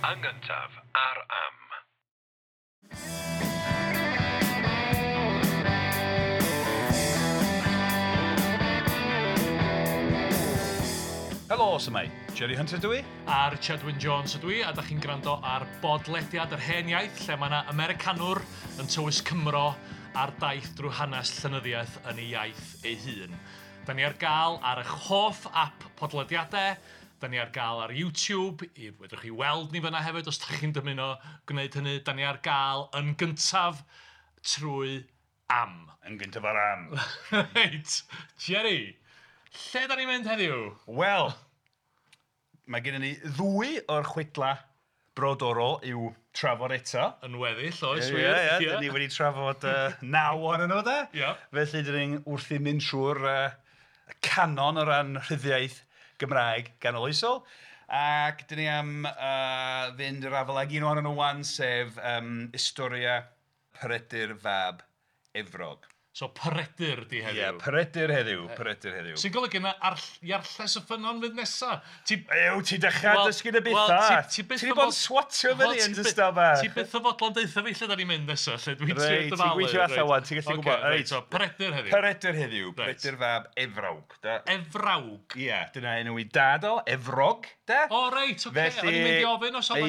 Yn gyntaf ar Am. Helo, s'mai. Jerry Hunter dwi. A Richard Wyn Jones ydw i, a da chi'n gwrando ar bodlediad yr hen iaith, lle mae yna Americanwr yn tywys Cymro ar daith drwy hanes llenyddiaeth yn ei iaith ei hun. Da ni ar gael ar eich hoff app podlediadau, da ni ar gael ar YouTube, i fedrwch chi weld ni fyna hefyd os da chi'n dymuno gwneud hynny. Da ni ar gael yn gyntaf trwy Am. Yn gyntaf ar Am. Reit, Jerry, lle da ni'n mynd heddiw? Wel, mae gennym ni ddwy o'r chwedla brodorol i'w trafod eto. Yn weddill, oes wir? Ie, ie, dyn ni wedi trafod 9 ohonyn nhw, de? Ie. Felly, dyn ni'n wrthi mynd trwy'r canon o ran rhyddiaith Gymraeg ganoloesol. Ac dyn ni am fynd i'r afael ag un ohonyn nhw wan, sef Historia Peredur fab Efrog. So Peredur di heddiw. Ie, Peredur heddiw, Peredur heddiw. Sy'n golygu na Iarlles y Ffynnon fydd nesa. Ew, ti dechrau dysgu dy bethau. Ti wedi bod yn swatio fyny yn dy staf. Ti byth o fodlon deutha fi lle da ni'n mynd nesa, lle dwi'n trio dyfalu. Reit, ti'n gweithio allan wan, ti'n gallu gwybod. Reit, so Peredur heddiw. Peredur heddiw, Peredur fab Efrawg. Efrawg? Ie, dyna enw i dad o, Efrog, de. O reit, oce, o'n i'n mynd i ofyn os oedd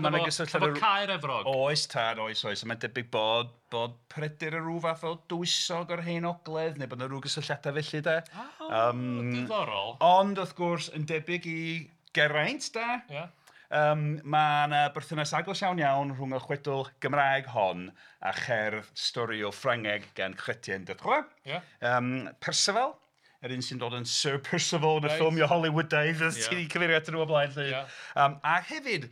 'na gysylltiad efo Caer Efrog. Oes tad, oes, oes, mae'n debyg bod Peredur yn rhyw fath o dywysog o'r hen ogledd, neu bod yna rhyw gysylltiadau felly, de. Diddorol. Ond, wrth gwrs, yn debyg i Geraint, de. Ie. Mae yna berthynas agos iawn iawn rhwng y chwedl Gymraeg hon a cherdd storiol Ffrangeg gan Chrétien de Troyes. Ie. Percival, yr un sy'n dod yn Sir Percival yn y ffilmiau Hollywoodaidd, ti wedi cyfeirio atyn nhw o blaen, 'lly. A hefyd,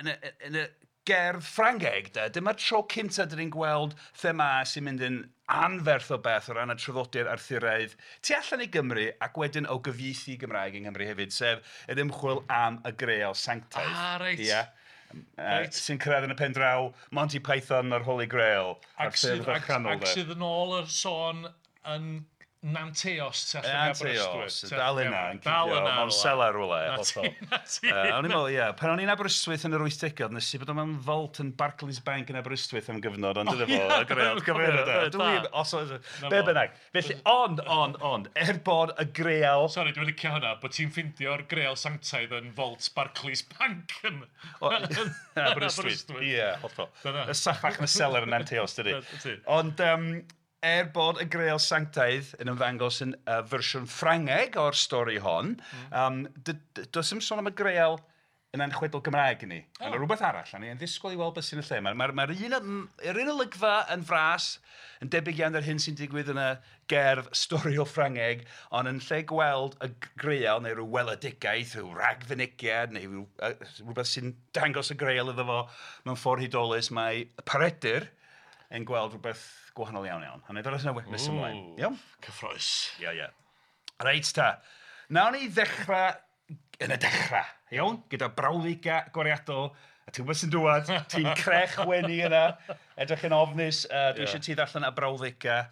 yn y gerdd Ffrangeg, de, dyma'r tro cyntaf dyn ni'n gweld themâu sy'n mynd yn anferth o beth o ran y traddodiad Arthuraidd tu allan i Gymru ac wedyn o gyfieithu Gymraeg yng Nghymru hefyd, sef yr ymchwil am y Greal Sanctaidd. Ah, reit. Ia. Reit. Sy'n cyrraedd yn y pen draw Monty Python a'r Holy Grail. Ac sydd yn ôl yr sôn yn Nanteos tu allan i Aberystwyth. Nanteos, dal yna, yn cuddio, mewn selar rhywle. Na ti. O'n i'n meddwl, ie, pan o'n i'n Aberystwyth yn yr 80au, nes i bod o'n mewn vault yn Barclays Bank yn Aberystwyth am gyfnod, ond dyna fo, y Greal, cyfeiriad. Os oes, be bynnag. Felly, ond, er bod y Greal... Sori, dwi'n licio hwnna, bod ti'n ffeindio'r Greal Sanctaidd yn vault Barclays Bank yn Aberystwyth. Ie, hollol. Y saffach yn y selar yn Nanteos, dydy. Ond... Er bod y Greal Sanctaidd yn ymddangos yn fersiwn Ffrangeg o'r stori hon, does dim sôn am y Greal yn anchwedl Gymraeg i ni. Oh. Mae'n rhywbeth arall, a ni'n ddisgwyl i weld beth sy'n y lle. Mae'r un olygfa yn fras, yn debyg iawn i'r hyn sy'n digwydd yn y gerdd storiol Ffrangeg, ond yn lle gweld y Greal neu rhyw weledigaeth, rhyw ragfynegiad, neu rhywbeth sy'n dangos y Greal iddo fo mewn ffordd hudolus, mae Peredur yn gweld rhywbeth gwahanol iawn iawn. A wna i ddod at nes ymlaen. Iawn? Cyffrous. Ie, ie. Reit ta. Nawn ni ddechrau yn y dechrau, iawn? Gyda brawddegau agoriadol. A ti'n gwybod sy'n dŵad, ti'n crech wenu yna, edrych yn ofnus. Dwi eisiau ti ddarllen y brawddegau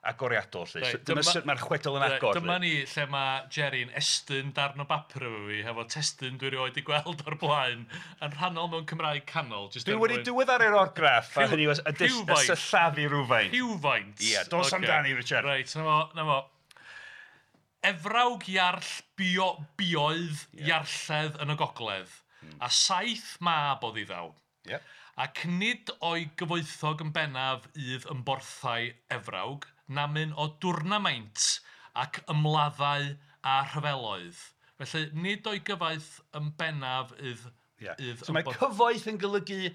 agoriadol, 'lly. Reit, dyma sut mae'r chwedl yn agor. Dyma ni lle mae Jerry'n estyn darn o bapur efo fi, hefo testun dwi erioed 'di gweld o'r blaen, yn rhannol mewn Cymraeg canol. Dwi wedi diweddaru'r orgraff, a hynny yw y sillafu rhywfaint. Rhywfaint. Ie, dos amdani, Richard. Reit, na fo. Efrawg Iarll bioedd Iarlledd yn y gogledd, a 7 mab oedd iddaw. Ie. Ac nid o'i gyfoethog yn bennaf ydd ymborthau Efrawg, namyn o dwrnamaint ac ymladdau a rhyfeloedd. Felly, nid o'i gyfoeth yn bennaf ydd... So mae cyfoeth yn golygu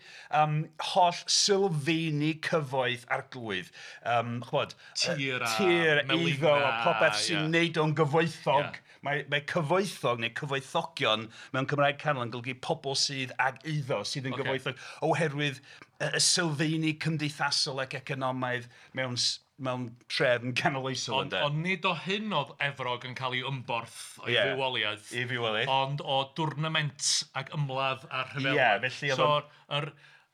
holl sylfeini cyfoeth arglwydd. Ch'mod, tir a tir, eiddo, a popeth sy'n neud o'n gyfoethog. Mae cyfoethog neu cyfoethogion mewn Cymraeg canol yn golygu pobl sydd ag eiddo, sydd yn gyfoethog, oherwydd y sylfeini cymdeithasol ac economaidd mewn trefn canoloesol. Ond nid o hyn oedd Efrog yn cael ei ymborth o'i fywoliaeth. I fywoliaeth. Ond o dwrnament ac ymladd a rhyfela. Ie, felly oedd... So,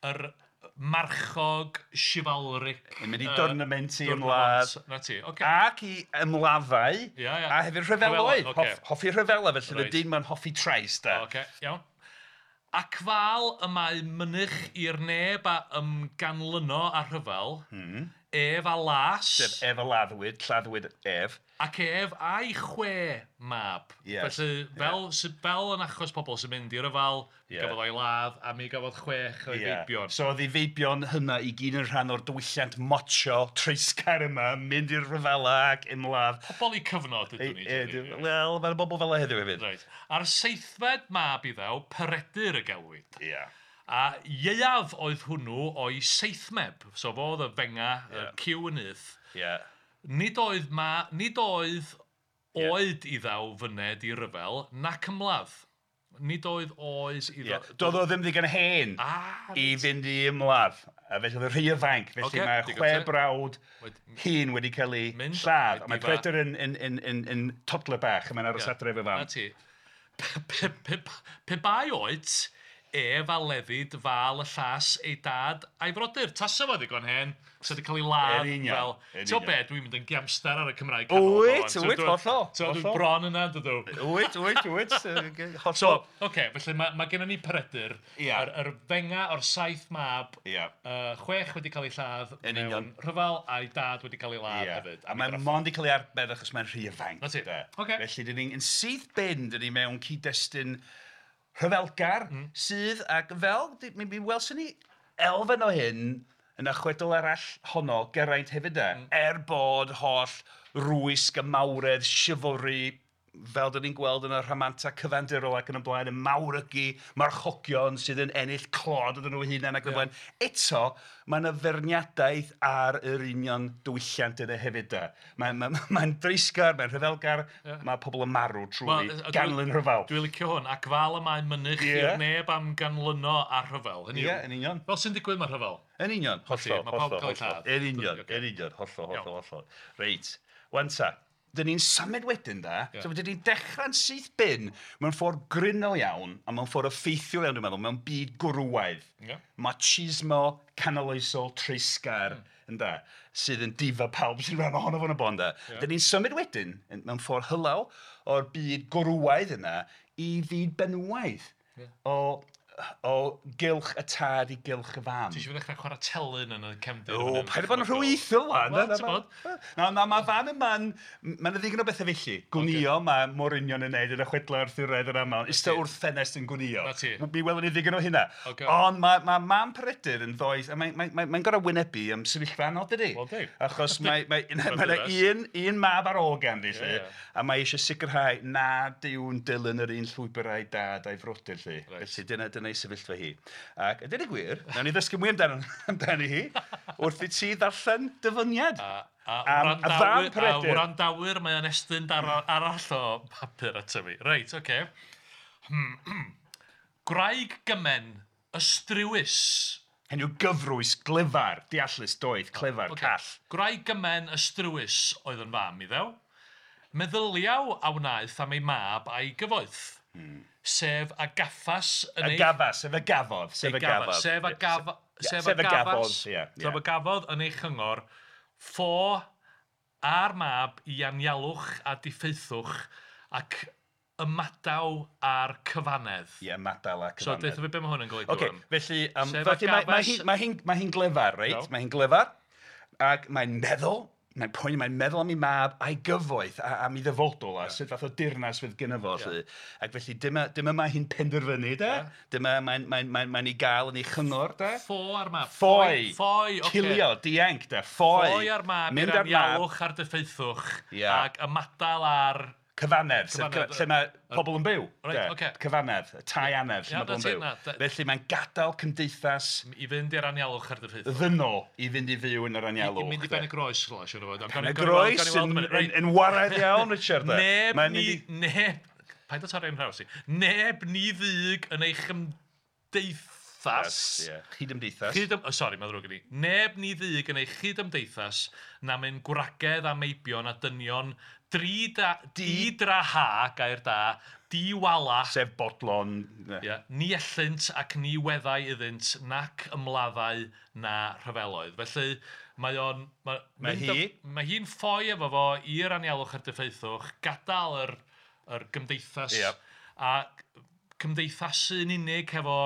yr marchog chivalric... Yn mynd i dwrnament i ymladd. Na ti, oce. Ac i ymladdau. A hefyd rhyfeloedd. Hoffi rhyfela, felly y dyn ma'n hoffi trais, da. Oce, iawn. Ac fal y mae mynych i'r neb a ymganlyno a rhyfel, ef a las. Sef ef a laddwyd, lladdwyd ef. Ac ef a'i 6 mab. Yes. Felly, fel, fel yn achos pobl sy'n mynd i ryfel, gafodd o'i ladd, a mi gafodd 6 o'i feibion. So oedd ei feibion hynna i gyd yn rhan o'r diwylliant mocho treisgar yma, mynd i'r rhyfela ac ymladd. Pobl i cyfnod ydyn ni. Wel, mae'n bobl fel heddiw hefyd. Right. A'r seithfed mab iddaw, Peredur y gelwid. Yeah. A ieuaf oedd hwnnw o'i seithmeb. So fo oedd y fenga, y cyw yn nyth. Yeah. Nid oedd oed iddaw fyned i ryfel, nac ymladd. Nid oedd oes iddo... Doedd o ddim ddigon hen i fynd i ymladd. A felly oedd y rhy ifanc. Felly mae 6 brawd hyn wedi cael eu lladd. A mae Peredur yn toddler bach, a mae'n aros adre efo fam. Na ti. Pe bai oed, ef a leddid fal y llas ei dad a'i frodyr. Tasa fo ddigon hen, sa wedi cael ei ladd fel... Ti'n be, dwi'n mynd yn giamstar ar y Cymraeg canol. Wyt, hollol. So dwi'n bron yna, dydw. Wyt, hollol. So, oce, felly mae gennym ni Peredur, yr fenga o'r 7 mab, 6 wedi cael ei lladd mewn rhyfel, a'i dad wedi cael ei ladd hefyd. A mae'n mond wedi cael ei arbed achos mae'n rhy ifanc. Na ti, oce. Felly, dyn ni'n syth bin, dyn ni mewn cyd-destun rhyfelgar sydd, ac fel, mi welson ni elfen o hyn yn y chwedl arall honno, Geraint hefyd e, er bod holl rwysg y mawredd, chivalry, fel dyn ni'n gweld yn y rhamanta cyfandirol ac yn y blaen, y mawrygu, marchogion sydd yn ennill clod iddyn nhw hunain ac yn y blaen. Eto, mae yna feirniadaeth ar yr union diwylliant yna hefyd da. Mae'n dreisgar, mae'n rhyfelgar, mae pobl yn marw trwy ganlyn rhyfel. Dwi'n licio hwn, ac fel y mae mynych i'r neb am ganlyno ar rhyfel. Ie, yn union. Fel sy'n digwydd mae rhyfel. Yn union, hollol, hollol. Yn union, hollol, hollol, hollol. Reit, wan ta. Dyn ni'n symud wedyn da, so dyn ni'n dechrau'n syth bin mewn ffordd gryno iawn a mewn ffordd effeithiol iawn dwi'n meddwl, mewn byd gwrywaidd. Machismo canoloesol treisgar ynda, sydd yn difa pawb sy'n rhan ohono fo'n y bon da. Dyn ni'n symud wedyn mewn ffordd hylaw o'r byd gwrywaidd yna i fyd benywaidd. O gylch y tad i gylch y fam. Ti eisiau ddechrau chwarae telyn yn y cefndir? O, paid â bod yn rhyweithiol wan. Na, mae fam yma'n... Mae yna ddigon o bethau felly. Gwnïo, mae Morynion yn neud yn y chwedlau Arthuraidd yn aml. Ista wrth ffenest yn gwnïo. Mi welwn ni ddigon o hynna. Ond mae mam Peredur yn ddoeth, a mae'n gorfod wynebu am sefyllfa anodd, dydi? Achos mae yna un mab ar ôl ganddi, lly, a mae eisiau sicrhau nad yw'n dilyn yr un llwybr a'i dad a'i frodyr, lly. Felly dyna ei sefyllfa hi. Ac a dweud y gwir, nawn ni ddysgu mwy amdani hi wrth i ti ddarllen dyfyniad. A wrandawyr, mae o'n estyn arall o papur ato fi. Reit, oce. Gwraig gymen, ystrywys. Hynny yw gyfrwys, glyfar, deallus, doeth, clyfar, call. Gwraig gymen, ystrywys oedd yn fam iddew. Meddyliaw a wnaeth am ei mab a'i gyfoeth. Sef a gaffas yn ei... A gafas, sef a gafodd. Sef a gafodd. Sef a gafodd yn ei chyngor, ffo a'r mab i anialwch a diffeithwch ac ymadaw a'r cyfanedd. Ie, ymadaw a'r cyfanedd. So, deutha fi be mae hwn yn golygu. Oce, felly, mae hi'n glyfar, reit? Mae hi'n glyfar, ac mae'n meddwl, mae'n poeni, mae'n meddwl am ei mab a'i gyfoeth a am ei ddyfodol a sut fath o dirnas fydd gynno fo. Yeah. Ac felly dyma mae hi'n penderfynu, de. Yeah. Dyma mae'n ei gael yn ei chyngor, de. Ffo ar mab. Ffoi. Ffoi, oce. Cilio, dianc, de. Ffoi. Ffoi ar mab i'r anialwch a'r diffeithwch ac ymadael ar... Cyfanedd, lle mae pobl yn byw. Right, okay. Cyfanedd, tai anedd, lle mae pobl yn byw. Felly mae'n gadael cymdeithas... I fynd i'r anialwch ar diffeithwch. Ddynol i fynd i fyw yn yr anialwch. I mynd i Ben y Groes, rhywle, siwr o fod. Ben y Groes yn waraidd iawn, Richard. Neb ni... Neb... Paid o torri yn nhraws i. Neb ni ddug yn ei chymdeithas. Chydymdeithas. Sori, mae'n ddrwg gen i. Neb ni ddug yn ei chydymdeithas na mynd gwragedd a meibion a dynion di-draha, gair da, di-wala. Sef bodlon. Yeah, ni ellynt ac ni weddau iddynt nac ymladdau na rhyfeloedd. Felly mae o'n... Mae hi'n ffoi efo fo i'r anialwch a'r diffeithwch, gadael yr gymdeithas a cymdeithasu yn unig hefo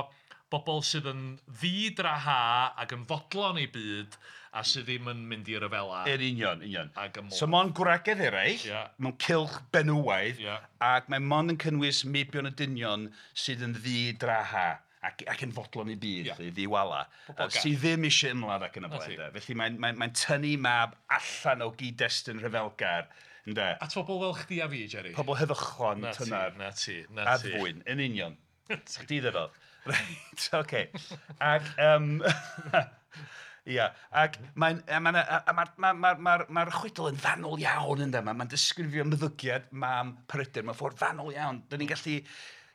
bobl sydd yn ddi-draha ac yn fodlon eu byd a sydd ddim yn mynd i ryfela. Yn union, union. Ac ymlaen. So mond gwragedd eraill, mewn cylch benywaidd, ac mae mond yn cynnwys meibion y dynion sydd yn ddi-draha ac yn fodlon i byd, ddiwala, sydd ddim eisiau ymladd ac yn y blaen. Felly mae'n tynnu mab allan o gyd-destun rhyfelgar. Ynde? At bobl fel chdi a fi, Jerry. Pobl heddychlon, tynar. Na ti, na ti. Addfwyn, yn union. Chdi ddefod. Reit, oce. Ac, ia, ac mae'r chwedl yn fanwl iawn, ynde. Mae'n disgrifio ymddygiad mam Peredur mewn ffordd fanwl iawn. Dyn ni'n gallu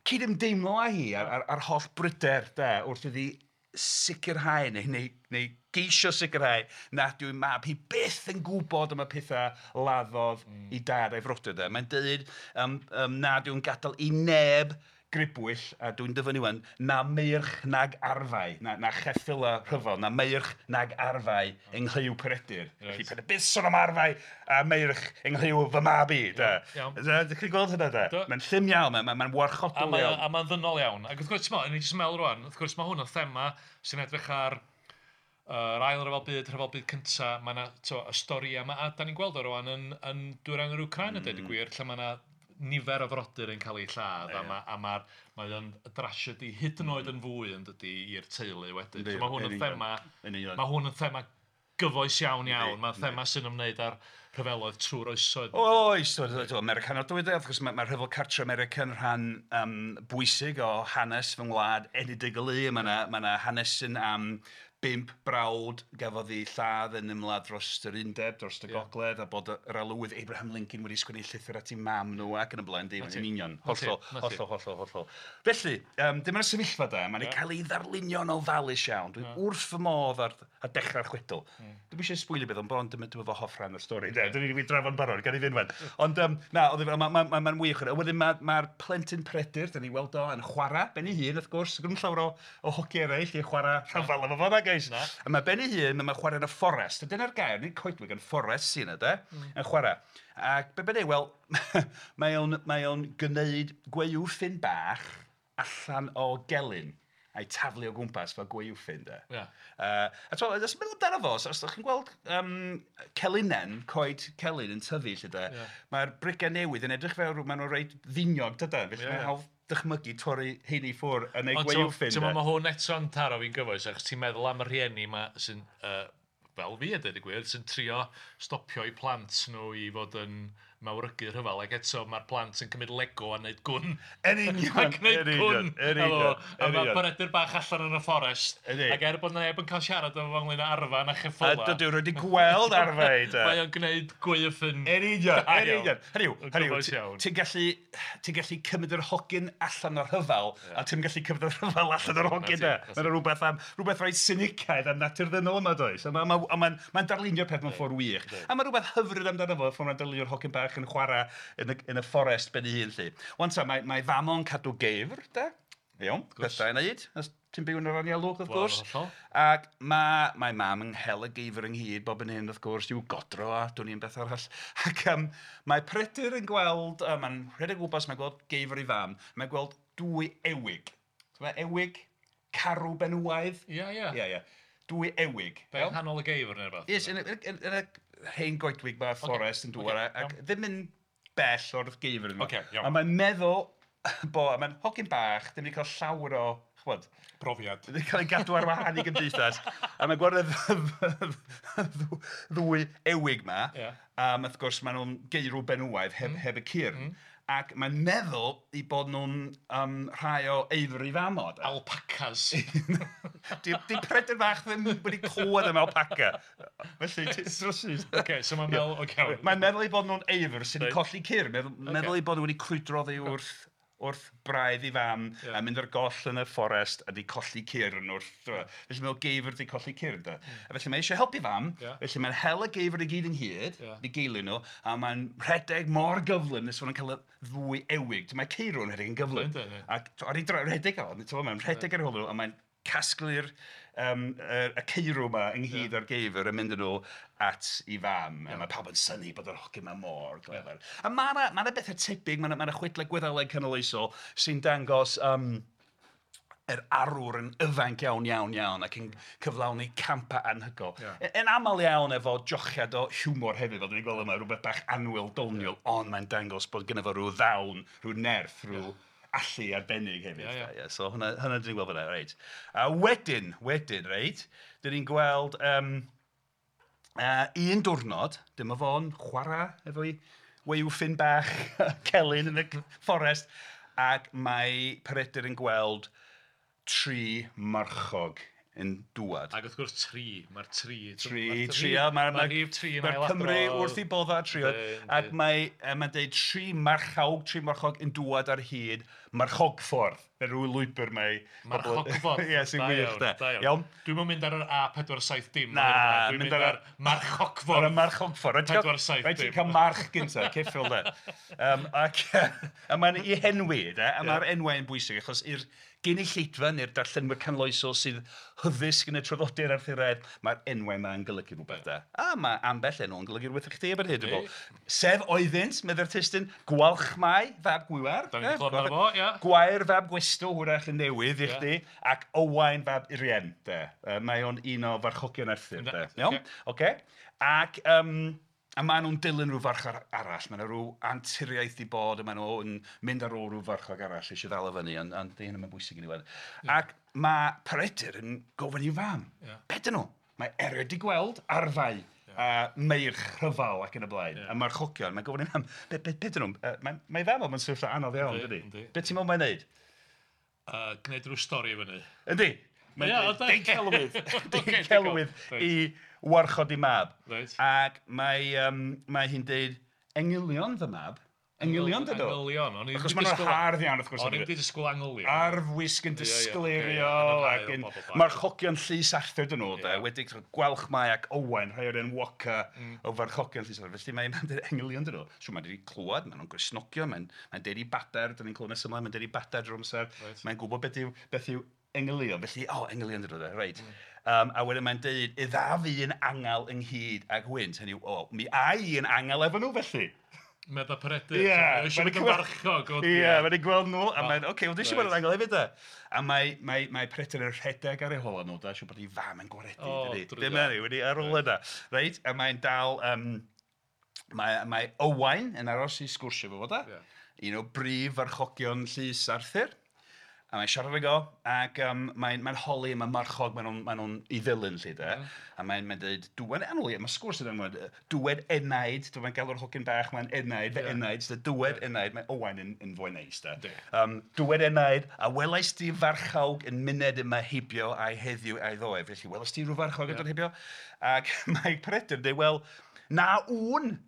cydymdeimlo â hi ar holl bryder, de, wrth iddi sicrhau neu geisio sicrhau nad yw'i mab hi byth yn gwybod am y pethau laddodd i dad a'i frodyr. De. Mae'n dweud nad yw'n gadael i neb gribwyll, a dwi'n dyfynnu wan, na meirch nag arfau, na cheffyla rhyfel, na meirch nag arfau yng nghlyw Peredur. Felly paid byth sôn am arfau a meirch yng nghlyw fy mab i. Ydych chi'n gweld hynna, de? Mae'n llym iawn, mae'n warchodol iawn. A mae'n ddynol iawn. Ac wrth gwrs, ti'n jyst meddwl rwan, wrth gwrs mae hwn yn thema sy'n edrych ar yr ail rhyfel byd, rhyfel byd cynta, mae yna y stori yma, a da ni'n gweld o rwan yn dwyrain yr Wcráin, a dweud y gwir, lle mae yna nifer o frodyr yn cael eu lladd, a mae o'n drasiedi hyd yn oed yn fwy yn dydi i'r teulu wedyn. So mae hwn yn thema, mae hwn yn thema gyfoes iawn iawn, mae'n thema sy'n ymwneud â'r rhyfeloedd trwy'r oesoedd. Oes, Americanol dwi wrth gwrs mae'r rhyfel cartre American rhan bwysig o hanes fy ngwlad enedigol i. Mae yna hanesyn am 5 brawd gafodd ei lladd yn ymladd dros yr undeb, dros y gogledd, a bod yr arlywydd Abraham Lincoln wedi sgwennu llythyr at ei mam nhw ac yn y blaen, dim yn union. Hollol, hollol, hollol, hollol. Felly, dyma'r sefyllfa da, mae'n cael ei ddarlunio'n ofalus iawn. Dwi wrth fy modd ar dechrau'r chwedl. Dwi'm eisiau sbwylio beth, ond bron dyma fy hoff rhan o'r stori. Dwi wedi drafod yn barod, gan i fynd wan. Ond na, mae'n wych. Wedyn mae'r plentyn Peredur, da ni weld o yn chwarae ben ei hun, wrth gwrs, gyda llawer o hogi eraill i chwarae rhyfel efo fo, A mae ben ei hun, mae'n chwarae yn y fforest. Dyna'r gair, nid coedwig, yn fforest sy'n yna, de, yn chwarae. Ac be bynnag, wel, mae o'n gwneud gwaywffyn bach allan o gelyn a'i taflu o gwmpas fel gwaywffyn, de. A ti'n meddwl amdano fo, os ydych chi'n gweld celinen, coed celyn yn tyfu, lle de, mae'r brigau newydd yn edrych fel maen nhw'n reit ddiniog, dydan, felly mae'n hawdd dychmygu torri heini ffwr yn ei gwaywffyn. Ond mae hwn eto'n taro fi'n gyfoes, achos ti'n meddwl am y rhieni yma sy'n, fel fi a dweud y gwir, sy'n trio stopio eu plant nhw i fod yn mawrygu rhyfel, ac eto mae'r plant yn cymryd Lego a wneud gwn. Yn union, yn union, yn union. A mae Peredur bach allan yn y fforest, ac er bod neb yn cael siarad efo fo ynglyn â arfa na cheffyla. A dydw wedi gweld arfau, de. Mae o'n gwneud gwaywffyn. Yn union, yn union. Hynny yw, ti'n gallu cymryd yr hogyn allan o'r rhyfel, a ti'n gallu cymryd yr rhyfel allan o'r hogyn, de. Mae'n rhywbeth reit sinicaidd am natur ddynol yma, does. A mae'n darlunio'r peth mewn ffordd wych. A mae rhywbeth hyfryd amdano fo, ffordd mae'n darlunio'r hogyn bach yn chwarae yn y fforest ben ei hun, lly. Wan ta, mae fam o'n cadw geifr, de? Iawn, peth da i wneud, os ti'n byw yn yr anialwch, wrth gwrs. Ac mae mam yn hel y geifr ynghyd bob yn hyn, wrth gwrs, i'w godro a dwn i'n beth arall. Ac mae Peredur yn gweld, mae'n rhedeg gwmpas, mae'n gweld geifr ei fam, mae'n gweld dwy ewig. Mae ewig, carw benywaidd. Ie, ie. Ie, ie. Dwy ewig. Be, nghanol y geifr neu rhywbeth? Yes, yn y hen goedwig mae'r fforest yn dŵr ac ddim yn bell o'r geifr yma. A mae'n meddwl bo, a mae'n hogyn bach, ddim wedi cael llawer o, ch'bod, profiad. Ddim wedi cael ei gadw ar wahân i gymdeithas. A mae'n gweld y ddwy ewig ma. A wrth gwrs maen nhw'n geirw benywaidd heb y cyrn. Ac mae'n meddwl i bod nhw'n rhai o eifr i famod. Alpacas. Di Peredur bach ddim wedi clywed am alpaca. Felly, ti'n drysys. Oce, so mae'n meddwl, oce. Mae'n meddwl i bod nhw'n eifr sy'n colli cyrn. Meddwl i bod nhw wedi crwydro oddi wrth braidd i fam a mynd ar goll yn y fforest a di colli cyrn wrth... Felly meddwl geifr di colli cyrn, da. A felly mae eisiau helpu fam, felly mae'n hel y geifr i gyd ynghyd, di geilio nhw, a mae'n rhedeg mor gyflym nes fod nhw'n cael y ddwy ewig. Mae ceirw yn rhedeg yn gyflym. Ac ar ei rhedeg o, mae'n rhedeg ar ôl nhw, a mae'n casglu'r y ceirw yma ynghyd o'r geifr yn mynd yn nhw at ei fam. A mae pawb yn synnu bod yr hogyn yma mor glyfar. A mae yna bethau tebyg, mae yna chwedlau Gwyddeleg canoloesol sy'n dangos yr arwr yn ifanc iawn, iawn, iawn ac yn cyflawni campau anhygoel. Yn aml iawn efo jochiad o hiwmor hefyd, fel dan ni'n gweld yma, rhywbeth bach annwyl, doniol, ond mae'n dangos bod gynno fo rhyw ddawn, rhyw nerth, rhyw allu arbennig hefyd. So hwnna dan ni'n gweld fan'na, reit. A wedyn, reit, dan ni'n gweld un diwrnod, dyma fo'n chwarae efo'i waywffyn bach celyn yn y fforest, ac mae Peredur yn gweld 3 marchog yn dŵad. Ac wrth gwrs 3, mae'r 3. 3, mae'r rhif 3 yn ailadrodd. Mae'r Cymru wrth eu bodda 3. Ac mae'n dweud 3 marchawg, 3 marchog yn dŵad ar hyd marchogffordd. Fe rhyw lwybr mae... Marchogffordd. Ie, sy'n wych de. Iawn. Dwi'm yn mynd ar yr A470. Na, dwi'n mynd ar marchogffordd. Ar y marchogffordd. 470. Rhaid ti'n cael march gyntaf, ceffyl de. Ac mae'n ei henwi, de, a mae'r enwau yn bwysig, achos i'r gynulleidfa neu'r darllenwyr canoloesol sydd hyddysg yn y traddodiad Arthuraidd, mae'r enwau yma yn golygu rhywbeth da. A mae ambell enw yn golygu rhywbeth i chdi erbyn hyn, dwi'n meddwl. Sef oeddynt, medde'r testun, Gwalchmai fab Gwiwer. Da ni'n clywed amdano fo, ia. Gwair fab Gwestw, hwyrach yn newydd i chdi, ac Owain fab Urien, de. Mae o'n un o farchogion Arthur, de. Iawn? Ocê. Ac a maen nhw'n dilyn rhyw farchog arall, maen nhw rhyw anturiaeth i bod, a maen nhw'n mynd ar ôl rhyw farchog arall eisiau ddal o fyny, ond di hynny'n bwysig i ni weld. Ac mae Peredur yn gofyn i'w fam, be dyn nhw? Mae erioed di gweld arfau a meirch rhyfel ac yn y blaen, a marchogion, mae'n gofyn i'w fam, be dyn nhw? Mae fam o'n sefyllfa anodd iawn, dydy? Be ti'n meddwl mae'n neud? Gwneud rhyw stori fyny. Yndi. Mae'n deud celwydd i warchod ei mab. Ac mae hi'n deud, engylion fy mab. Engylion dydw? Engylion. Achos maen nhw'n hardd iawn, wrth gwrs. O'n i'n disgwyl angylion. Arfwisg yn disgleirio ac yn marchogion llys Arthur dyn nhw. Wedi Gwalchmai ac Owain, rhai o'r enwoca o farchogion llys Arthur. Felly mae'n deud engylion dyn nhw. So mae'n deud clywed, maen nhw'n Gristnogion, mae'n deud i badair, dyn ni'n clywed nes ymlaen, mae'n deud i badair drwy'r amser. Mae'n gwybod beth yw engylion, felly, engylion dyn nhw, reit. A wedyn mae'n deud, idda fi yn angel ynghyd ag hwynt. Hynny yw, mi ai i yn angel efo nhw, felly. Medda Peredur. Ie. Eisiau mynd yn farchog. Ie, mae'n ei gweld nhw, a mae'n, oce, wel, eisiau bod yn angel hefyd, da. A mae Peredur yn rhedeg ar ei hola nhw, da, siŵr bod ei fam yn gwaredu, dydy. Dim hynny, wedi ar ôl yna. Reit, a mae'n dal, mae Owain yn aros i sgwrsio fo, da. Un o brif farchogion llys Arthur. A mae'n siarad ag o, ac mae'n holi, mae'n marchog, maen nhw'n ei ddilyn, lly, de. A mae'n dweud, dwed, anwl, mae sgwrs yn dweud, dwed enaid, mae'n galw'r hogyn bach, mae'n enaid, fy enaid, dwed enaid, mae Owain yn fwy neis, de. Dwed enaid, a welais di farchawg yn myned yma heibio a'i heddiw a'i ddoe. Felly, welais di rhyw farchog yn dod heibio? Ac mae Peredur yn dweud, wel, na wn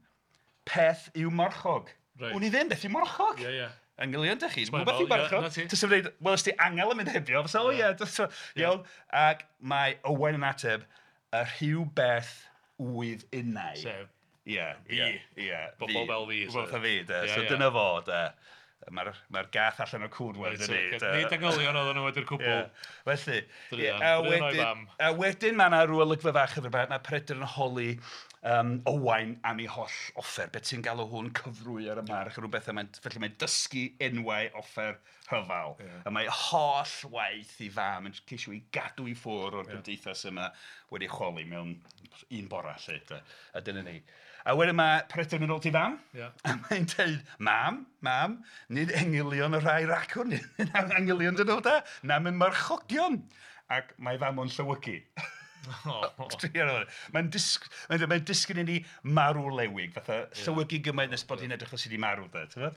peth yw marchog. Wn i ddim beth yw marchog. Ie, ie. Angylion, dych chi, dwi'n gwybod beth yw marchog. Ti'n dweud, wel, ys ti angel yn mynd hebio, fysa, o ie, iawn. Ac mae Owain yn ateb, y rhyw beth wydd innau. Sef, ie, fi. Ie, Bobl fel fi. Bobl fel fi, de. So dyna fo, de. Mae'r gath allan o'r cwd wedyn ni. Nid angylion oedden nhw wedi'r cwbl. Felly, a wedyn mae yna rhyw olygfa fach hefyd, mae Peredur yn holi Owain am ei holl offer. Be ti'n galw hwn cyfrwy ar y march, rhyw bethau. Felly mae'n dysgu enwau offer rhyfel. A mae holl waith i fam yn ceisio i gadw i ffwrdd o'r gymdeithas yma wedi chwalu mewn un bora, lle. A dyna ni. A wedyn mae Peredur yn mynd ôl ti fam, a mae'n dweud, mam, nid engylion y rhai racwn, nid angylion dyn nhw da, na mynd marchogion. Ac mae fam o'n llywygu. Mae'n disgyn i ni marw lewig, fatha llywygu gymaint nes bod hi'n edrych fel sydd wedi marw.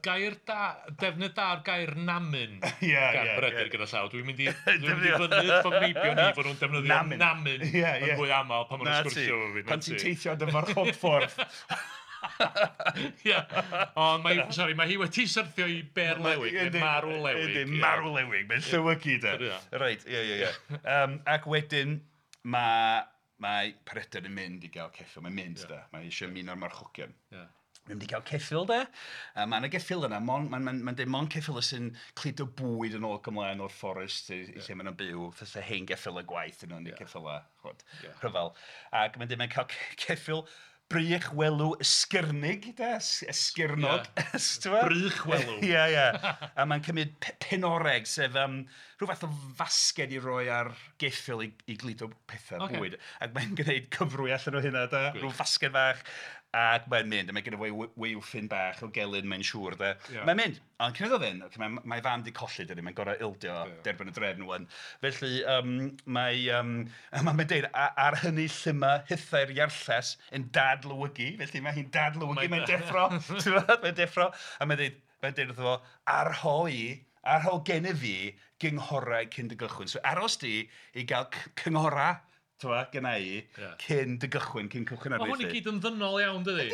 Gair da, defnydd da o'r gair namyn gan Peredur gyda llaw. Dwi'n mynd i fyny fy meibion ni fod nhw'n defnyddio namyn yn fwy aml pan maen nhw'n sgwrsio efo fi. Pan ti'n teithio dy farchogffordd. Ie, ond mae hi wedi syrthio i ber lewig, neu marw lewig. Marw lewig, mae'n llywygu de. Reit, ie. Ac wedyn, mae Peredur yn mynd i gael ceffyl, mae'n mynd da, mae eisiau ymuno'r marchogion. Mae'n mynd i gael ceffyl de. A mae yna geffyl yna, mae'n ma, ma, ma deud mond ceffyl sy'n cludo bwyd yn ôl ac ymlaen o'r fforest i, yeah. lle maen nhw'n byw, fatha hen geffyl y gwaith yn nhw'n yeah. ceffyl a chwod, yeah. rhyfel. Ac mae'n deud mae'n cael ceffyl brych welw ysgyrnig, de, esgyrnog. Yeah. Brych welw. Ie, ie. A mae'n cymryd penoreg, sef rhyw fath o fasged i roi ar geffyl i gludo pethau bwyd. Ac mae'n gwneud cyfrwy allan o hynna, de, rhyw fasged fach. Ac mae'n mynd, a mae genna fo waywffyn bach o gelyn, mae'n siŵr, de. Yeah. Mae'n mynd, ond cyn iddo fynd, okay, mae fam di colli, dydy, mae'n gorau ildio derbyn y drefn wan. Felly, mae'n deud, ar hynny llyma hithau'r iarlles yn dadlywygu, felly mae hi'n dadlywygu, mae'n deffro, mae'n deffro, a mae'n deud wrtho fo, arho gennyf fi gynghorau cyn dy gychwyn. So aros di i gael cynghorau, gynna i, cyn dy gychwyn, cyn cychwyn ar. Mae hwn i gyd yn ddynol iawn, dydi?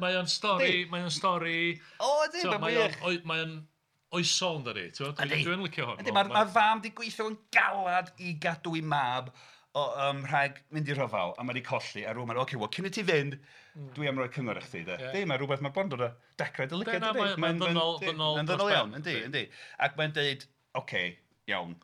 Mae o'n stori... O, ydy, mae'n wych. Mae o'n oesol, dydi? Dwi'n licio hwn. Mae'r fam di gweithio yn galad i gadw i mab rhag mynd i rhyfel, a mae di colli, a rhywun mae'n, oce, wel, cyn i ti fynd, dwi am roi cyngor i chdi, de. Di, mae rhywbeth, mae bron dod o dechrau dy lygaid, dydi? Mae'n ddynol iawn, yndi. Ac mae'n deud, oce, iawn,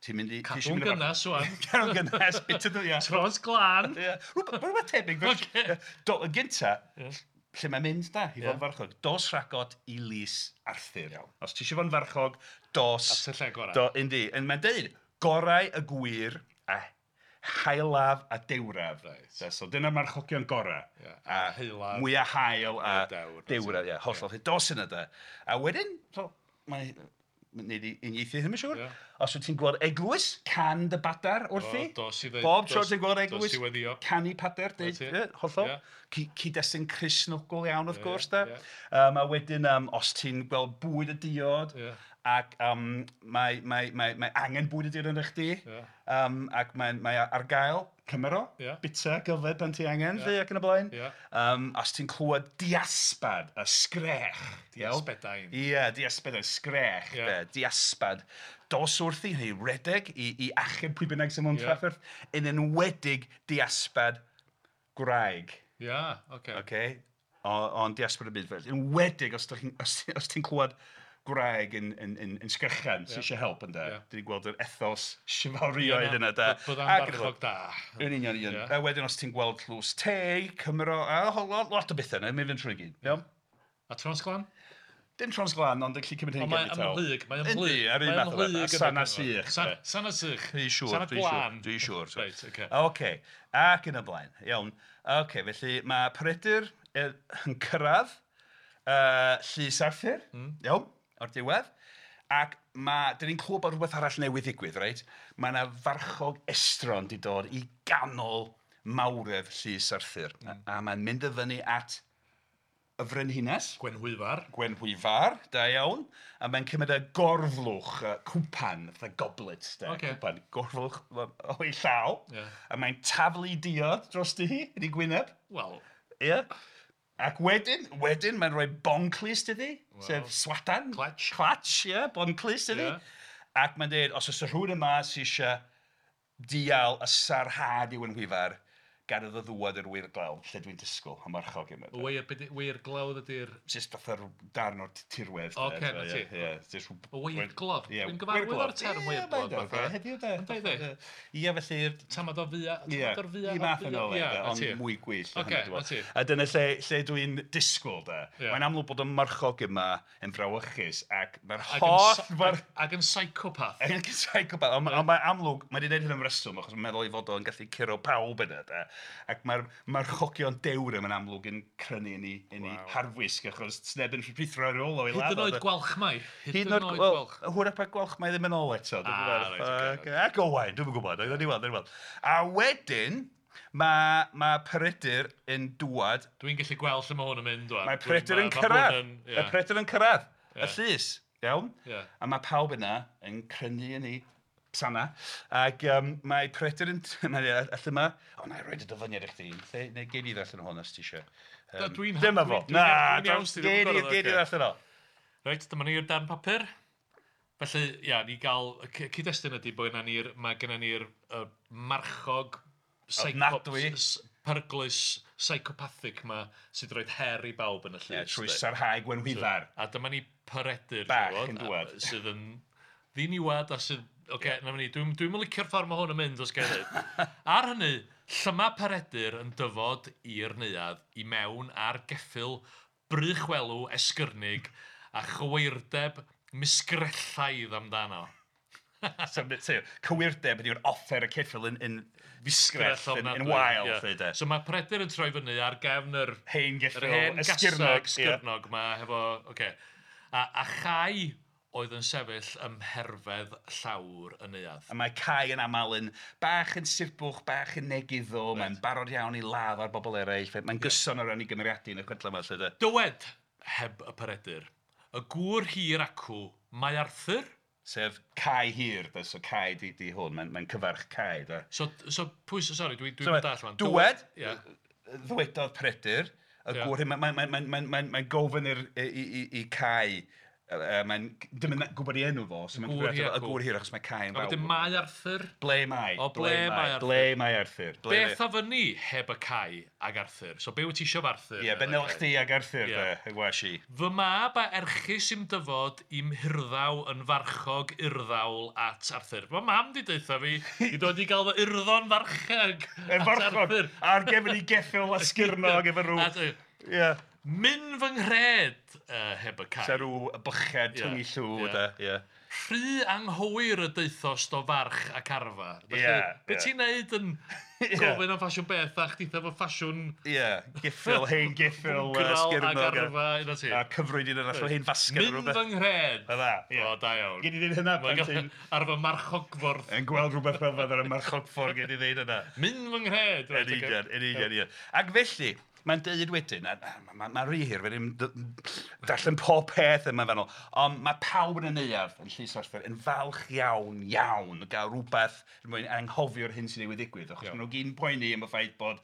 ti'n mynd i... Cadw'n gynnas, wan. Cadw'n gynnas, bit ydw, ia. Tros glân. Rhywbeth tebyg. Y gynta, lle mae'n mynd, da, i fod yn farchog. Dos rhagot i lys Arthur. Os ti eisiau fod yn farchog, dos... At y lle gorau. Yndi. Mae'n deud, gorau y gwir a haelaf a dewraf. So dyna'r marchogion gorau. A haelaf. Mwyaf hael a dewraf, ie. Hollol. Dos yna, da. A wedyn, mae... Nid i uniaethu hyn, mae'n siŵr. Os wyt ti'n gweld eglwys, can dy badar wrthi. Bob tro ti'n gweld eglwys, canu pader, hollol. Cyd-destun Cristnogol iawn, wrth gwrs, da. A wedyn, os ti'n gweld bwyd a diod, ac mae angen bwyd a diod yn chdi, ac mae ar gael, cymero, bita, gyfed pan ti angen, lle ac yn y blaen. Os ti'n clywed diaspad, y sgrech. Diasbedain. Ie, diasbedain, sgrech, diaspad. Dos wrthi, neu redeg, i achub pwy bynnag sy'n mewn trafferth, yn enwedig diaspad gwraig. Ie, oce. Oce, ond diaspad y byd fel. Enwedig os ti'n clywed gwraig yn sgrechan sy'n eisiau help ynde. Dyn ni'n gweld yr ethos chivalrioedd yna, da. Bod am farchog da. Yn union, union. A wedyn os ti'n gweld tlws te, Cymro, a lot o bethau yna, mynd fynd trwy gyd. Iawn? A Tros Glan? Dim Tros Glan, ond yn gallu cymryd hyn gen i taw. Mae'n ymhlyg, mae'n ymhlyg. Yndi, ar un math o beth. Sana sych. Sana sych. Dwi'n siŵr, Sana glân. Dwi'n siŵr. Reit, oce. Oce, ac yn y blaen. Iawn. Oce, felly mae Peredur yn cyrraedd Llys Arthur. Iawn. O'r diwedd, ac dyn ni'n clywed bod rhywbeth arall newydd ddigwydd, reit? Mae yna farchog estron di dod i ganol mawredd Llys Arthur. A mae'n mynd y fyny at y frenhines. Gwenhwyfar. Gwenhwyfar, da iawn. A mae'n cymryd y gorflwch, cwpan, fatha goblet, da. Okay. Cwpan, gorflwch o'i llaw. Yeah. A mae'n taflu diod drosti hi, yn ei gwyneb. Wel. Ie. Yeah. Ac wedyn mae'n rhoi bonclust iddi, sef swadan. Clatch. Clatch, ie, yeah, bonclust iddi. Yeah. Ac mae'n dweud, os oes rhywun yma sy'n eisiau dial y sarhad i Wenhwyfar, gad iddo ddŵad i'r weirglawdd, lle dwi'n disgwyl am marchog yma. Weirglawdd ydy'r... Jyst fatha'r darn o'r tirwedd. Oce, na ti. Ie. Weirglawdd. Dwi'n gyfarwydd o'r term weirglawdd. Heddiw de. Ynddi? Ie, felly... Tamad o fia. Tamad o'r fia. I math yn ôl, ond mwy gwyllt. Oce, na ti. A dyna lle dwi'n disgwyl, de. Mae'n amlwg bod y marchog yma yn frawychus ac mae'r holl... Ac yn psychopath. Ac yn psychopath. Ond mae'n amlwg, mae wedi gwneud hyn am reswm, achos mae'n meddwl ei fod o'n gallu curo pawb yna, de. Ac mae'r marchogion dewr yma'n amlwg yn crynu yn ei harfwisg, achos sneb yn rhuthro ar ôl o'i ladd. Hyd yn oed Gwalchmai. Hyd yn oed Gwalch. Hwyrach bod Gwalchmai ddim yn ôl eto. Ac Owain, dwi'm yn gwybod. Ni weld. A wedyn, mae Peredur yn dŵad. Dwi'n gallu gweld lle mae hwn yn mynd. Mae Peredur yn cyrraedd. Mae Peredur yn cyrraedd. Y llys, iawn? A mae pawb yna yn crynu yn ei sana. Ac mae Peredur yn... Allan yma... O, na i roed y dyfyniad i chdi. Neu gei di ddarllen hwn os ti eisiau. Dyma fo. Na, gei di ddarllen o. Reit, dyma ni'r darn papur. Felly, ia, ni gael... Cyd-destun ydy bod mae gennym ni'r marchog... Ofnadwy. peryglus psychopathic ma sydd roed her i bawb yn y llys. Yeah, trwy sarhau Gwenhwyfar. A dyma ni Peredur bach yn dŵad. Sydd yn ddiniwad a sydd... Oce, na ni, dwi'n licio'r ffordd mae hwn yn mynd os gael dweud. Ar hynny, llyma Peredur yn dyfod i'r neuadd i mewn ar geffyl brychwelw esgyrnig a chywirdeb misgrellaidd amdano. So, cywirdeb ydy'r offer y ceffyl yn fisgrell, yn wael. Yeah. So mae Peredur yn troi fyny ar gefn yr hen geffyl esgyrnog, esgyrnog ma hefo, okay. A Chai oedd yn sefyll ym mherfedd llawr y neuadd. A mae Cai yn aml yn bach yn sirbwch, bach yn negyddol, right. Mae'n barod iawn i ladd ar bobl eraill, mae'n gyson o ran ei gymeriadu yn y chwedlau yma. Lle, dywed, heb y Peredur, y gŵr hir acw, mae Arthur? Sef Cai Hir, da, so Cai di hwn, mae'n cyfarch Cai. Da. So pwy, sori, dwi'n so, dall fan. Dywed, ddywedodd Peredur, y gŵr hyn, mae'n gofyn i Cai, mae'n dim yn gwybod ei enw fo, so mae'n y gŵr hir achos mae Cai yn fawr. A wedyn mae Arthur? Ble mae? O, ble mae Arthur? Ble mae Arthur? Beth a fyny heb y Cai ag Arthur? So be wyt ti isio Arthur? Ie, be nel chdi ag Arthur, de, y gwas i. Fy mab a erchus i'm dyfod i'm hirddaw yn farchog urddawl at Arthur. Mae mam di deutha fi i dod i gael fy urddo'n farchog at Arthur. Ar gefn i geffyl a sgyrnog efo rhyw. Ie. Myn fy nghred heb y Cai. Sa rhyw byched tyngu llw, da. Yeah. Rhy anghywir y deuthost o farch ac arfa. Felly, be ti'n neud yn gofyn am ffasiwn beth a chditha fo ffasiwn... Ie, geffyl, hen geffyl, sgyrnog. Ac arfa, un o ti. A cyfrwyd un arall o hen fasged. Myn fy nghred. Fydda, ie. O, da iawn. Gyd i ddeud hynna pan ti'n... Ar fy marchogffordd. Yn gweld rhywbeth fel ar y marchogffordd, gyd i ddeud hynna. Myn fy nghred. Yn union, yn union, ie. Ac felly, mae'n deud wedyn, mae'n rhy hir, fe ddim darllen pob peth yma fanol, ond mae pawb yn y neuadd yn Llys Arthur yn falch iawn, iawn, o gael rhywbeth er mwyn anghofio'r hyn sy'n newydd ddigwydd, achos maen nhw gyd yn poeni am y ffaith bod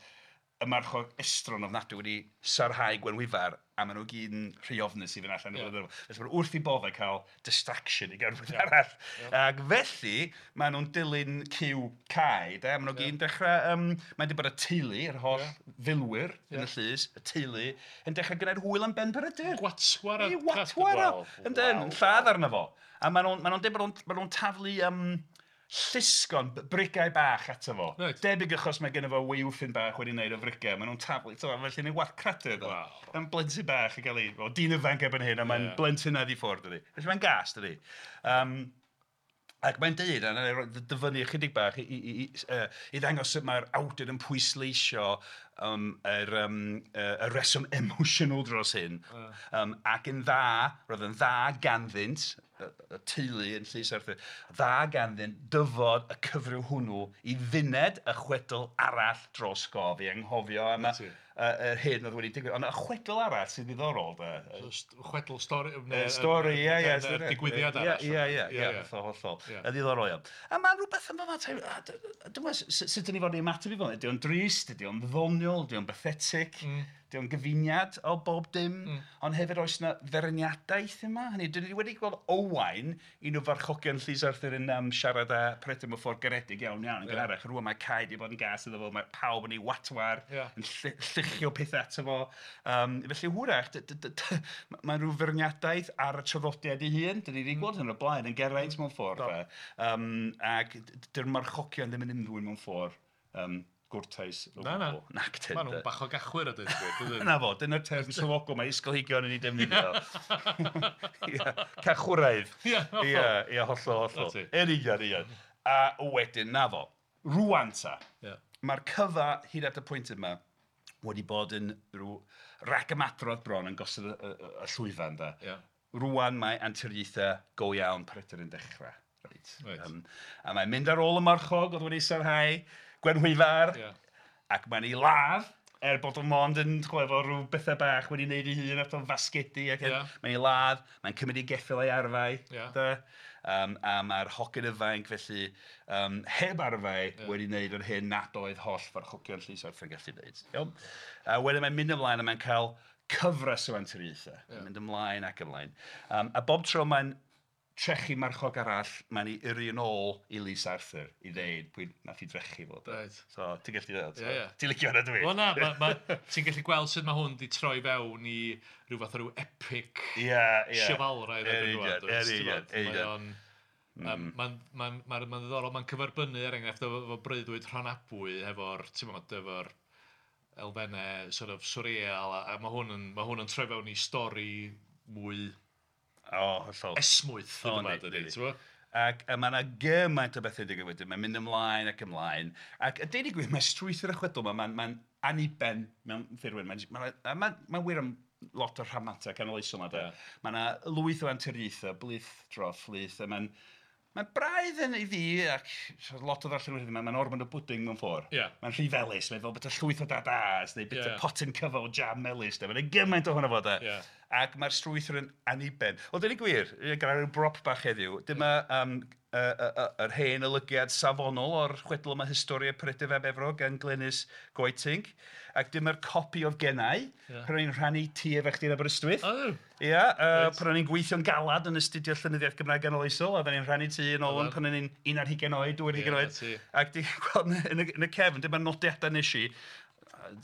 y marchog estron ofnadwy wedi sarhau Gwenhwyfar, a maen nhw gyd yn rhy ofnus i fynd allan. Felly maen nhw wrth i boddau cael distraction i gael rhywbeth arall. Ac felly, maen nhw'n dilyn cyw Cai, de? Maen nhw gyd yn dechrau, mae'n dweud bod y teulu, yr holl filwyr yn y llys, y teulu, yn dechrau gwneud hwyl am ben Peredur. Gwatwar. Ei, watwar o! Yndyn, yn lladd arno fo. A maen nhw'n dweud bod nhw'n taflu llusgon, brigau bach ato fo. Right. Debyg achos mae genno fo waywffyn bach wedi wneud o frigau. Maen nhw'n taflu, felly yn ei wath cradur. Wow. Mae'n blentyn bach yn cael ei... O, dyn ifanc erbyn hyn, a mae'n blentyn i ffwrdd, dydi. Felly mae'n gas, dydi. Ac mae'n deud, a na i dyfynnu ychydig bach i ddangos sut mae'r awdur yn pwysleisio y reswm emosiynol dros hyn. Ac yn dda, roedd yn dda ganddynt, y teulu yn Llys Arthur, dda ganddynt dyfod y cyfryw hwnnw i fyned y chwedl arall dros gof, i anghofio am yr hyn oedd wedi digwydd. Ond y chwedl arall sy'n ddiddorol, de. Chwedl stori... Stori, ie, ie. Digwyddiad arall. Ie, ie, hollol, hollol. Y ddiddorol iawn. A mae rhywbeth yn fama, dwi'n meddwl, sut dyn ni fod i ymateb i fod? Ydy o'n drist, ydy o'n ddoniol, ydy o'n pathetic, ydy o'n gyfuniad o bob dim, ond hefyd oes yna feirniadaeth yma. Hynny, dyn ni wedi gweld Owain, un o farchogion Llys Arthur yn siarad â Peredur mewn ffordd garedig iawn iawn yn gynharach. Rŵan mae Cai wedi bod yn gas iddo fo, mae pawb yn ei watwar, yn lluchio pethau ato fo. Felly hwyrach, mae rhyw feirniadaeth ar y traddodiad ei hun. Dyn ni wedi gweld hyn o'r blaen yn Geraint mewn ffordd. Ac dy'r marchogion ddim yn ymddwyn mewn ffordd gwrtais o gwbl. Na, na. Maen nhw'n bach o gachwyr a dweud gwir. Na fo, dyna'r term swyddogol mae ysgolheigion yn ei defnyddio. Cachwraidd. Ie, hollol, hollol. Yn union, union. A wedyn, na fo, rŵan ta, mae'r cyfa hyd at y pwynt yma wedi bod yn rhyw ragymadrodd bron yn gosod y llwyfan, da. Rŵan mae anturiaethau go iawn Peredur yn dechrau. A mae'n mynd ar ôl y marchog oedd wedi sarhau Gwenhwyfar, ac mae'n ei ladd, bod o'n mond yn efo rhyw bethau bach wedi wneud ei hun at o'n fasgedi. Ac mae'n ei ladd, mae'n cymryd ei geffyl a'i arfau. A mae'r hogyn ifanc felly heb arfau wedi wneud yr hyn nad oedd holl farchogion Llys Arthur yn gallu wneud. A wedyn mae'n mynd ymlaen a mae'n cael cyfres o anturiaethau. Mae'n mynd ymlaen ac ymlaen. A bob tro mae'n trechu marchog arall, mae'n ei yrru yn ôl i Lys Arthur i ddeud pwy nath i drechu fo. Right. So, ti'n gallu dweud? Ie, ie. Ti'n licio hwnna dwi? Wel na, ti'n gallu gweld sut mae hwn di troi fewn i rhyw fath o ryw epic chivalraidd erbyn rŵan. Yn union. Mae'n ddiddorol, mae'n cyferbynnu er enghraifft efo breuddwyd Rhonabwy efo'r, ti'n gwbod, efo'r elfennau sort of surreal, a mae hwn yn troi fewn i stori mwy hollol esmwyth, hyd yma, dydy, ti'n gwbod? Ac mae yna gymaint o bethau digwydd wedyn, mae'n mynd ymlaen ac ymlaen. Ac a deud y gwir, mae strwythur y chwedl yma, mae'n aniben mewn ffurfwyd. Mae'n wir am lot o'r rhamantau canoloesol yma, de. Mae yna lwyth o anturiaethau, blith dros blith, a mae'n braidd yn i fi, ac lot o ddarllenwyr, mae'n ormod o bwding mewn ffordd. Yeah. Mae'n rhy felys, mae'n fel beth o llwyth o dadas, neu beth o potyn cyfo o jam melys, de. Mae'n gymaint ohono fo, de. Yeah. Ac mae'r strwythur yn aniben. Wel, dweud y gwir, gyda rhyw brop bach heddiw, dyma yr hen olygiad safonol o'r chwedl yma Historia Peredur fab Efrog gan Glenys Goetink. Ac dyma'r copi oedd gennau, pan o'n i'n rhannu tŷ efo chdi yn Aberystwyth. Ia, pan o'n i'n gweithio'n galad yn astudio llenyddiaeth Gymraeg ganoloesol, a oedden ni'n rhannu tŷ yn ôl pan o'n i'n 21 oed, 22 oed. Ac ti'n gweld yn y cefn, dyma'r nodiadau nes i,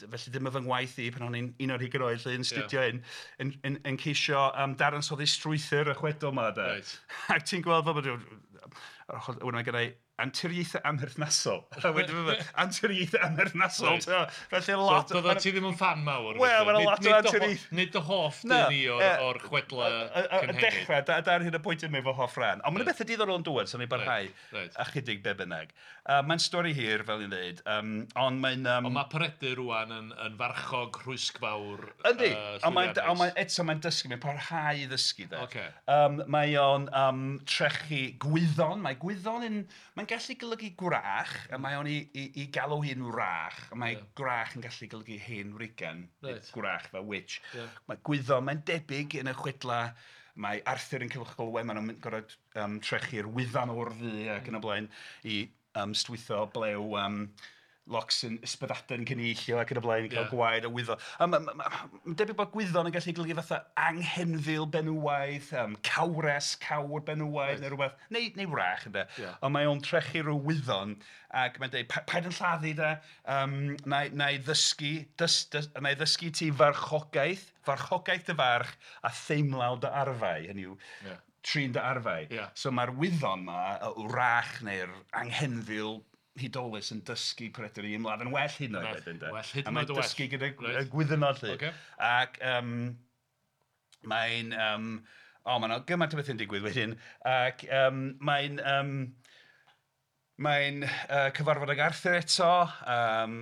felly dyma fy ngwaith i pan o'n i'n 21 oed, lle yn astudio hyn, yn ceisio dadansoddi strwythur y chwedl yma. Right. Ac ti'n gweld fel bod... Wedyn mae gennau anturiaethau amherthnasol. Anturiaethau amherthnasol. Right. Felly lot... So, doeddet ti ddim yn fan mawr? Wel, mae'n lot o anturiaethau. Nid dy hoff dyn i o'r chwedla cynhenid. Y dechrau, dar hyn y pwynt yma efo hoff ran. Ond mae'n bethau diddorol yn dŵad, so ni'n barhau ychydig be bynnag. Mae'n stori hir, fel i'n dweud, ond mae'n... Ond mae Peredur rŵan yn farchog rhwysgfawr. Yndi, ond eto mae'n dysgu, mae'n parhau i ddysgu. Mae o'n trechu gwyddon, mae gwyddon yn... Mae'n gallu golygu gwrach, a mae o'n i galw hi'n wrach, a mae gwrach yn gallu golygu hen wrigan, gwrach fel witch. Mae gwyddon, mae'n debyg yn y chwedla, mae Arthur yn Culhwch ac Olwen, maen nhw'n gorfod trechu'r wyddan o'r ddu ac yn y blaen i stwytho blew locsyn ysbyddaden cynillio ac yn y blaen i cael gwaed o wyddon. Mae'n debyg bod gwyddon yn gallu golygu fatha anghenfil benywaidd, cawres, cawr benywaidd neu rhywbeth, neu wrach ynde. Ond mae o'n trechu rhyw wyddon ac mae'n dweud, paid yn lladdu de, na i ddysgu ti farchogaeth dy farch a theimlaw dy arfau, hynny yw, trin dy arfau. So mae'r wyddon ma, y wrach neu'r anghenfil hudolus yn dysgu Peredur i ymladd yn well hyd yn oed wedyn, de. Well hyd yn oed A mae'n dysgu gyda gwyddonod 'lly. Ac mae'n... mae'n gymaint o bethau'n digwydd wedyn. Ac mae'n... Mae'n cyfarfod ag Arthur eto.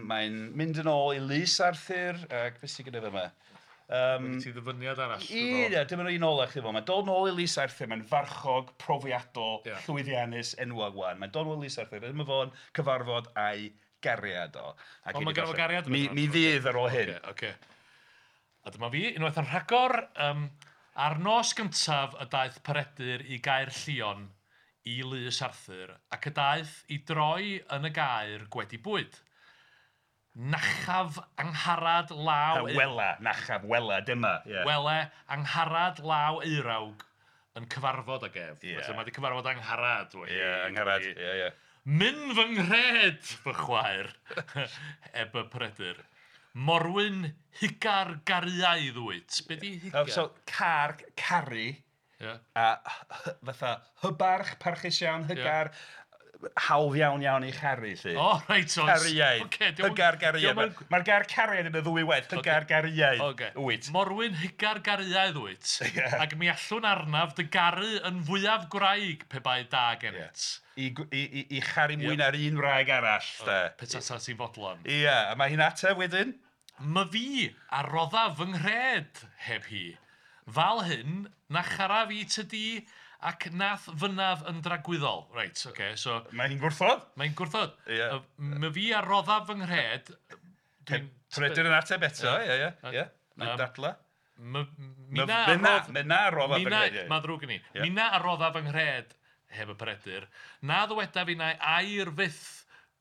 Mae'n mynd yn ôl i lys Arthur. Ac beth sydd gyda fe yma? Ti ddyfyniad arall. Ie, dyma un ola chdi fo. Mae'n dod nôl i Lys Arthur, mae'n farchog, profiadol, llwyddiannus, enwog wan. Mae'n dod nôl i Lys Arthur, dyma fo'n cyfarfod a'i gariad o. Ond mae ganddo fo gariad? Mi fydd ar ôl hyn. Okay. A dyma fi, unwaith yn rhagor, ar nos gyntaf y daeth Peredur i Gaer Llion i Lys Arthur, ac y daeth i droi yn y gaer gwedi bwyd. Nachaf angharad law... Wela, nachaf, wela, dyma. Wele, angharad law eirawg yn cyfarfod ag ef. Felly mae wedi cyfarfod angharad. Ie, angharad, ie. Myn fy nghred, fy chwaer, eb y Peredur. Morwyn hugar gariaidd wyt. Be di hugar? So, car, caru, a fatha hybarch, parchus iawn, hygar, hawdd iawn iawn i charu, lly. O, reit, oes. Cariaid. Hygar gariaid. Mae'r gair cariad yn y ddwy waith. Hygar gariaid. Wyt. Morwyn hygar gariaid wyt. Ac mi allwn arnaf dy garu yn fwyaf gwraig pe bai da gennyt. I charu mwy na'r un wraig arall. Petata ti'n fodlon. Ie, a mae hi'n ateb wedyn. My fi a roddaf fy nghred heb hi. Fal hyn, na charaf i ty di ac nath fynaf yn dragwyddol. Reit, oce, so... Mae hi'n gwrthod? Mae'n gwrthod. My fi a roddaf fy nghred... Peredur yn ateb eto, ie, ie. Mae'n dadla. Mina a roddaf fy nghred. Mae'n ddrwg gen i. Mina a roddaf fy nghred, heb y Peredur, na ddywedaf innau air fyth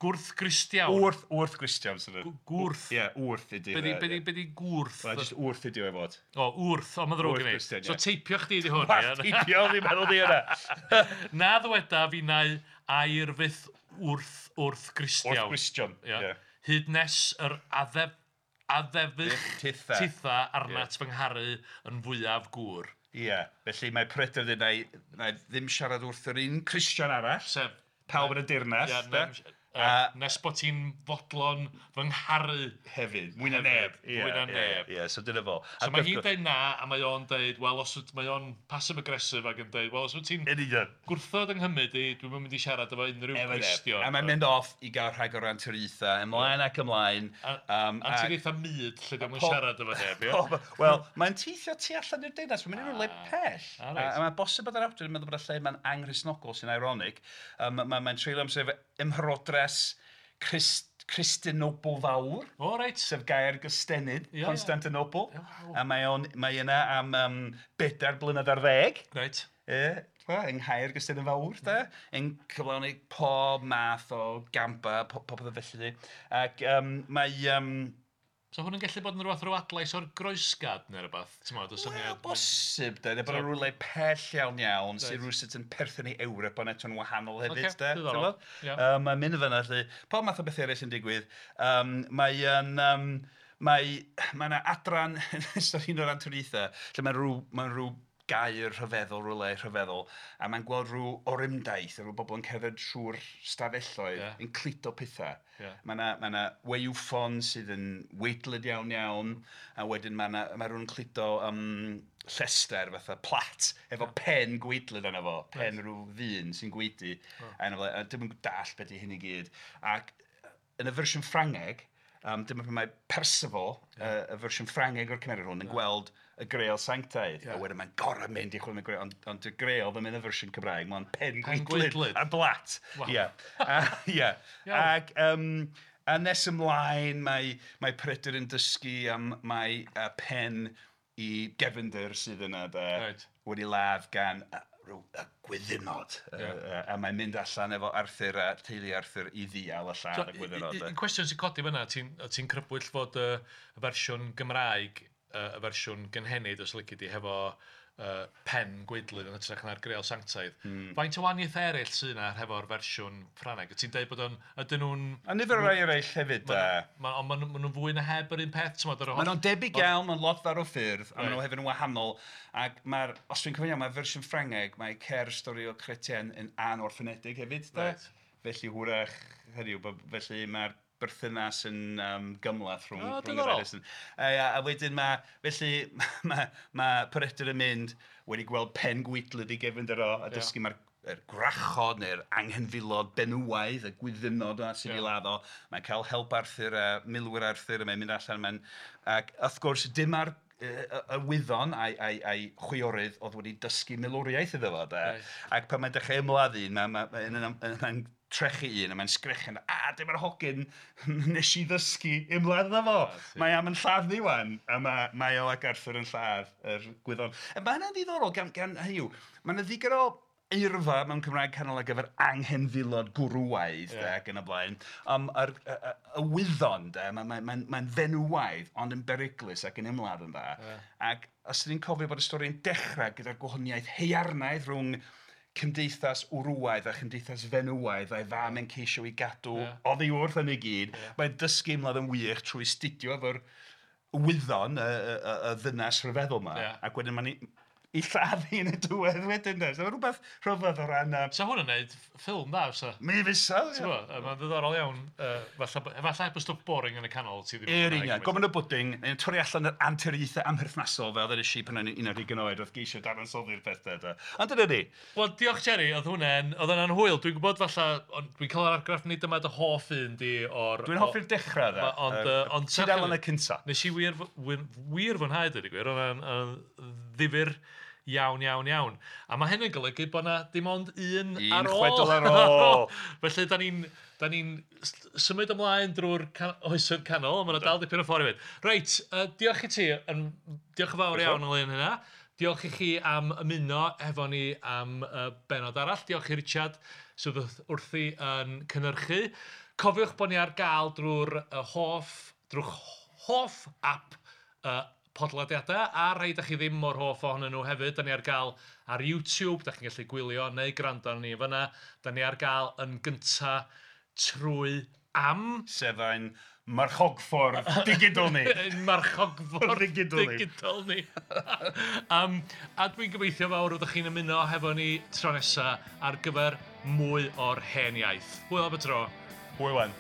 Gwrth-Gristiawn. Wrth-Gristiawn. Gwrth. Ie, wrth ydi. Be di gwrth? Wel, jyst wrth ydi o'i fod. O, wrth, o, mae'n ddrwg gen i. So teipio chdi di hwn. Wel, teipio, fi'n meddwl di yna. Na ddweda fi nau air fyth wrth-Gristiawn. Wrth-Gristion, ie. Hyd nes yr addefych titha arnat fy ngharu yn fwyaf gŵr. Ie, felly mae Peredur dweud na i ddim siarad wrth yr un Cristion arall. Sef pawb yn y dirnas. Nes bod ti'n fodlon fy ngharu. Hefyd, mwy na neb. Mwy na neb. Ie, so dyna fo. So mae hi'n dweud na, a mae o'n dweud, wel, os mae o'n passive-aggressive ac yn dweud, wel, os wyt ti'n gwrthod yng Nghymru di, dwi'm yn mynd i siarad efo unrhyw Gristion. A mae'n mynd off i gael rhag o'r anturiaethau, ymlaen ac ymlaen. Anturiaethau myd, lle dwi'n siarad efo neb, ie? Wel, mae'n teithio tu allan i'r deyrnas, mae'n mynd i rywle pell. A mae'n bosib bod yr awdur yn meddwl bod y lle mae'n anghristnogol sy'n ironic. Mae'n treulio amser efo ymherodres Cristinople fawr. O, reit. Sef gair gystenid, Constantinople. A mae yna am 4 blynedd ar 10. Reit. Ie, yng Nghaer Gystennin fawr, de. Yn cyflawni pob math o gampa, popeth felly. Ac mae... So hwn yn gallu bod yn rhywbeth rhyw adlais o'r groesgad neu rhywbeth? Wel, bosib, de. Bod yn rhywle pell iawn iawn, sy'n rhywsut yn perthyn i Ewrop, ond eto'n wahanol hefyd, de. Mae'n mynd fyna, lle. Pob math o bethau eraill yn digwydd. Mae yna adran yn ystod un o'r anturiaethau, lle mae'n rhyw gair rhyfeddol, rhywle rhyfeddol, a mae'n gweld rhyw orymdaith, rhyw bobl yn cerdded trwy'r stafelloedd, yn cludo pethau. Mae yna waywffon sydd yn weitlyd iawn iawn, a wedyn mae rhywun yn cludo llester fatha plat, efo pen gweidlyd arno fo, pen rhyw ddyn sy'n gweidi, a dim yn dallt beth i hyn i gyd. Ac yn y fersiwn Ffrangeg, dyma pan mae Percival, y fersiwn Ffrangeg o'r cymeriad hwn, yn gweld y Greal Sanctaidd. A wedyn mae'n gorau mynd i chwilio am y Greal, ond y Greal ddim yn y fersiwn Cymraeg, mae'n pen gweidlyd a blat. Ie. Ac a nes ymlaen mae Peredur yn dysgu am mae pen i gefnder sydd yna, de, wedi ladd gan y gwyddynod. A mae'n mynd allan efo Arthur a teulu Arthur i ddial y lladd y gwyddynod. Un cwestiwn sy'n codi fyna, ti'n crybwyll fod y fersiwn Gymraeg, y fersiwn gynhenid, os lici di, hefo pen gweidlyd yn hytrach na'r Greal Sanctaidd. Faint o wahaniaethau eraill sydd yna hefo'r fersiwn Ffrangeg? Ti'n dweud bod o'n... Ydyn nhw'n... A nifer o rai eraill hefyd. Ond maen nhw'n fwy na heb yr un peth? Maen nhw'n debyg iawn, maen lot fawr o ffyrdd, a maen nhw hefyd yn wahanol. Ac mae'r... Os dwi'n cofio iawn, mae'r fersiwn Ffrangeg, mae cer stori o Chrétien yn anorffenedig hefyd. Felly hwyrach, hynny yw, felly mae'r berthynas yn gymhleth rhwng y ddau. A wedyn mae, felly mae Peredur yn mynd wedi gweld pen gweidlyd i gefnder o, a dysgu mae'r gwrachod neu'r anghenfilod benywaidd, y gwyddynod yna sy'n ei ladd o. Mae'n cael help Arthur a milwyr Arthur, a mae'n mynd allan. Ac wrth gwrs, dim ar y wyddon a'i chwiorydd oedd wedi dysgu milwriaeth iddo fo. Ac pan mae'n dechrau ymladd un, mae'n trechu un, a mae'n sgrechian, a dyma'r hogyn nes i ddysgu ymladd iddo fo. Mae am yn lladd ni wan, a mae o ac Arthur yn lladd yr gwyddon. Mae hynna'n ddiddorol gan hynny yw, mae yna ddigon o eirfa mewn Cymraeg canol ar gyfer anghenfilod gwrywaidd ac yn y blaen. Y wyddon, mae'n fenywaidd, ond yn beryglus ac yn ymladd yn dda. Ac os ydyn ni'n cofio bod y stori'n dechrau gyda'r gwahaniaeth haearnaidd rhwng cymdeithas wrywaidd a chymdeithas fenywaidd a'i fam yn ceisio i gadw oddi wrth yn ei gyd. Mae'n dysgu ymladd yn wych trwy studio efo'r wyddon, y ddynas rhyfeddol yma. Ac wedyn mae'n i lladd hi yn y diwedd wedyn. So mae rhywbeth rhyfedd o ran... So hwn yn neud ffilm dda, fysa? Mi fysa. Mae'n ddiddorol iawn. Efallai heb y stwff boring yn y canol. Yr union. Gofyn y bwding, yn torri allan yr anturiaethau amherthnasol fel ddweud i pan o'n i'n 11 oed wrth geisio dadansoddi'r pethau. Ond dyna ni. Wel, diolch Jerry, oedd hwnna'n hwyl. Dwi'n gwybod falle, dwi'n cael yr argraff nid dyma dy hoff un di o'r... Dwi'n hoffi'r dechrau dda. Ond tudalen y cynta. Nes i wir fwynhau, dweud y gwir. Oedd o'n ddifyr iawn, iawn, iawn. A mae hyn yn golygu bod yna dim ond un ar ôl. Un chwedl ar ôl. Felly, da ni'n symud ymlaen drwy'r oesoedd canol, ond mae yna dal dipyn o ffordd i fynd. Reit, diolch i ti, diolch yn fawr iawn ynglyn hynna. Diolch i chi am ymuno efo ni am benod arall. Diolch i Richard sydd wrthi yn cynhyrchu. Cofiwch bod ni ar gael drwy'r hoff, drwy'ch hoff app podlediadau, a rhai da chi ddim mor hoff ohonyn nhw hefyd. Da ni ar gael ar YouTube, da chi'n gallu gwylio neu gwrando arnon ni fyna. Da ni ar gael yn gynta trwy Am. Sef ein marchogffordd digidol ni. Ein marchogffordd digidol ni. A dwi'n gobeithio fawr fyddwch chi'n ymuno hefo ni tro nesa ar gyfer mwy o'r Hen Iaith. Hwyl am y tro. Hwyl wan.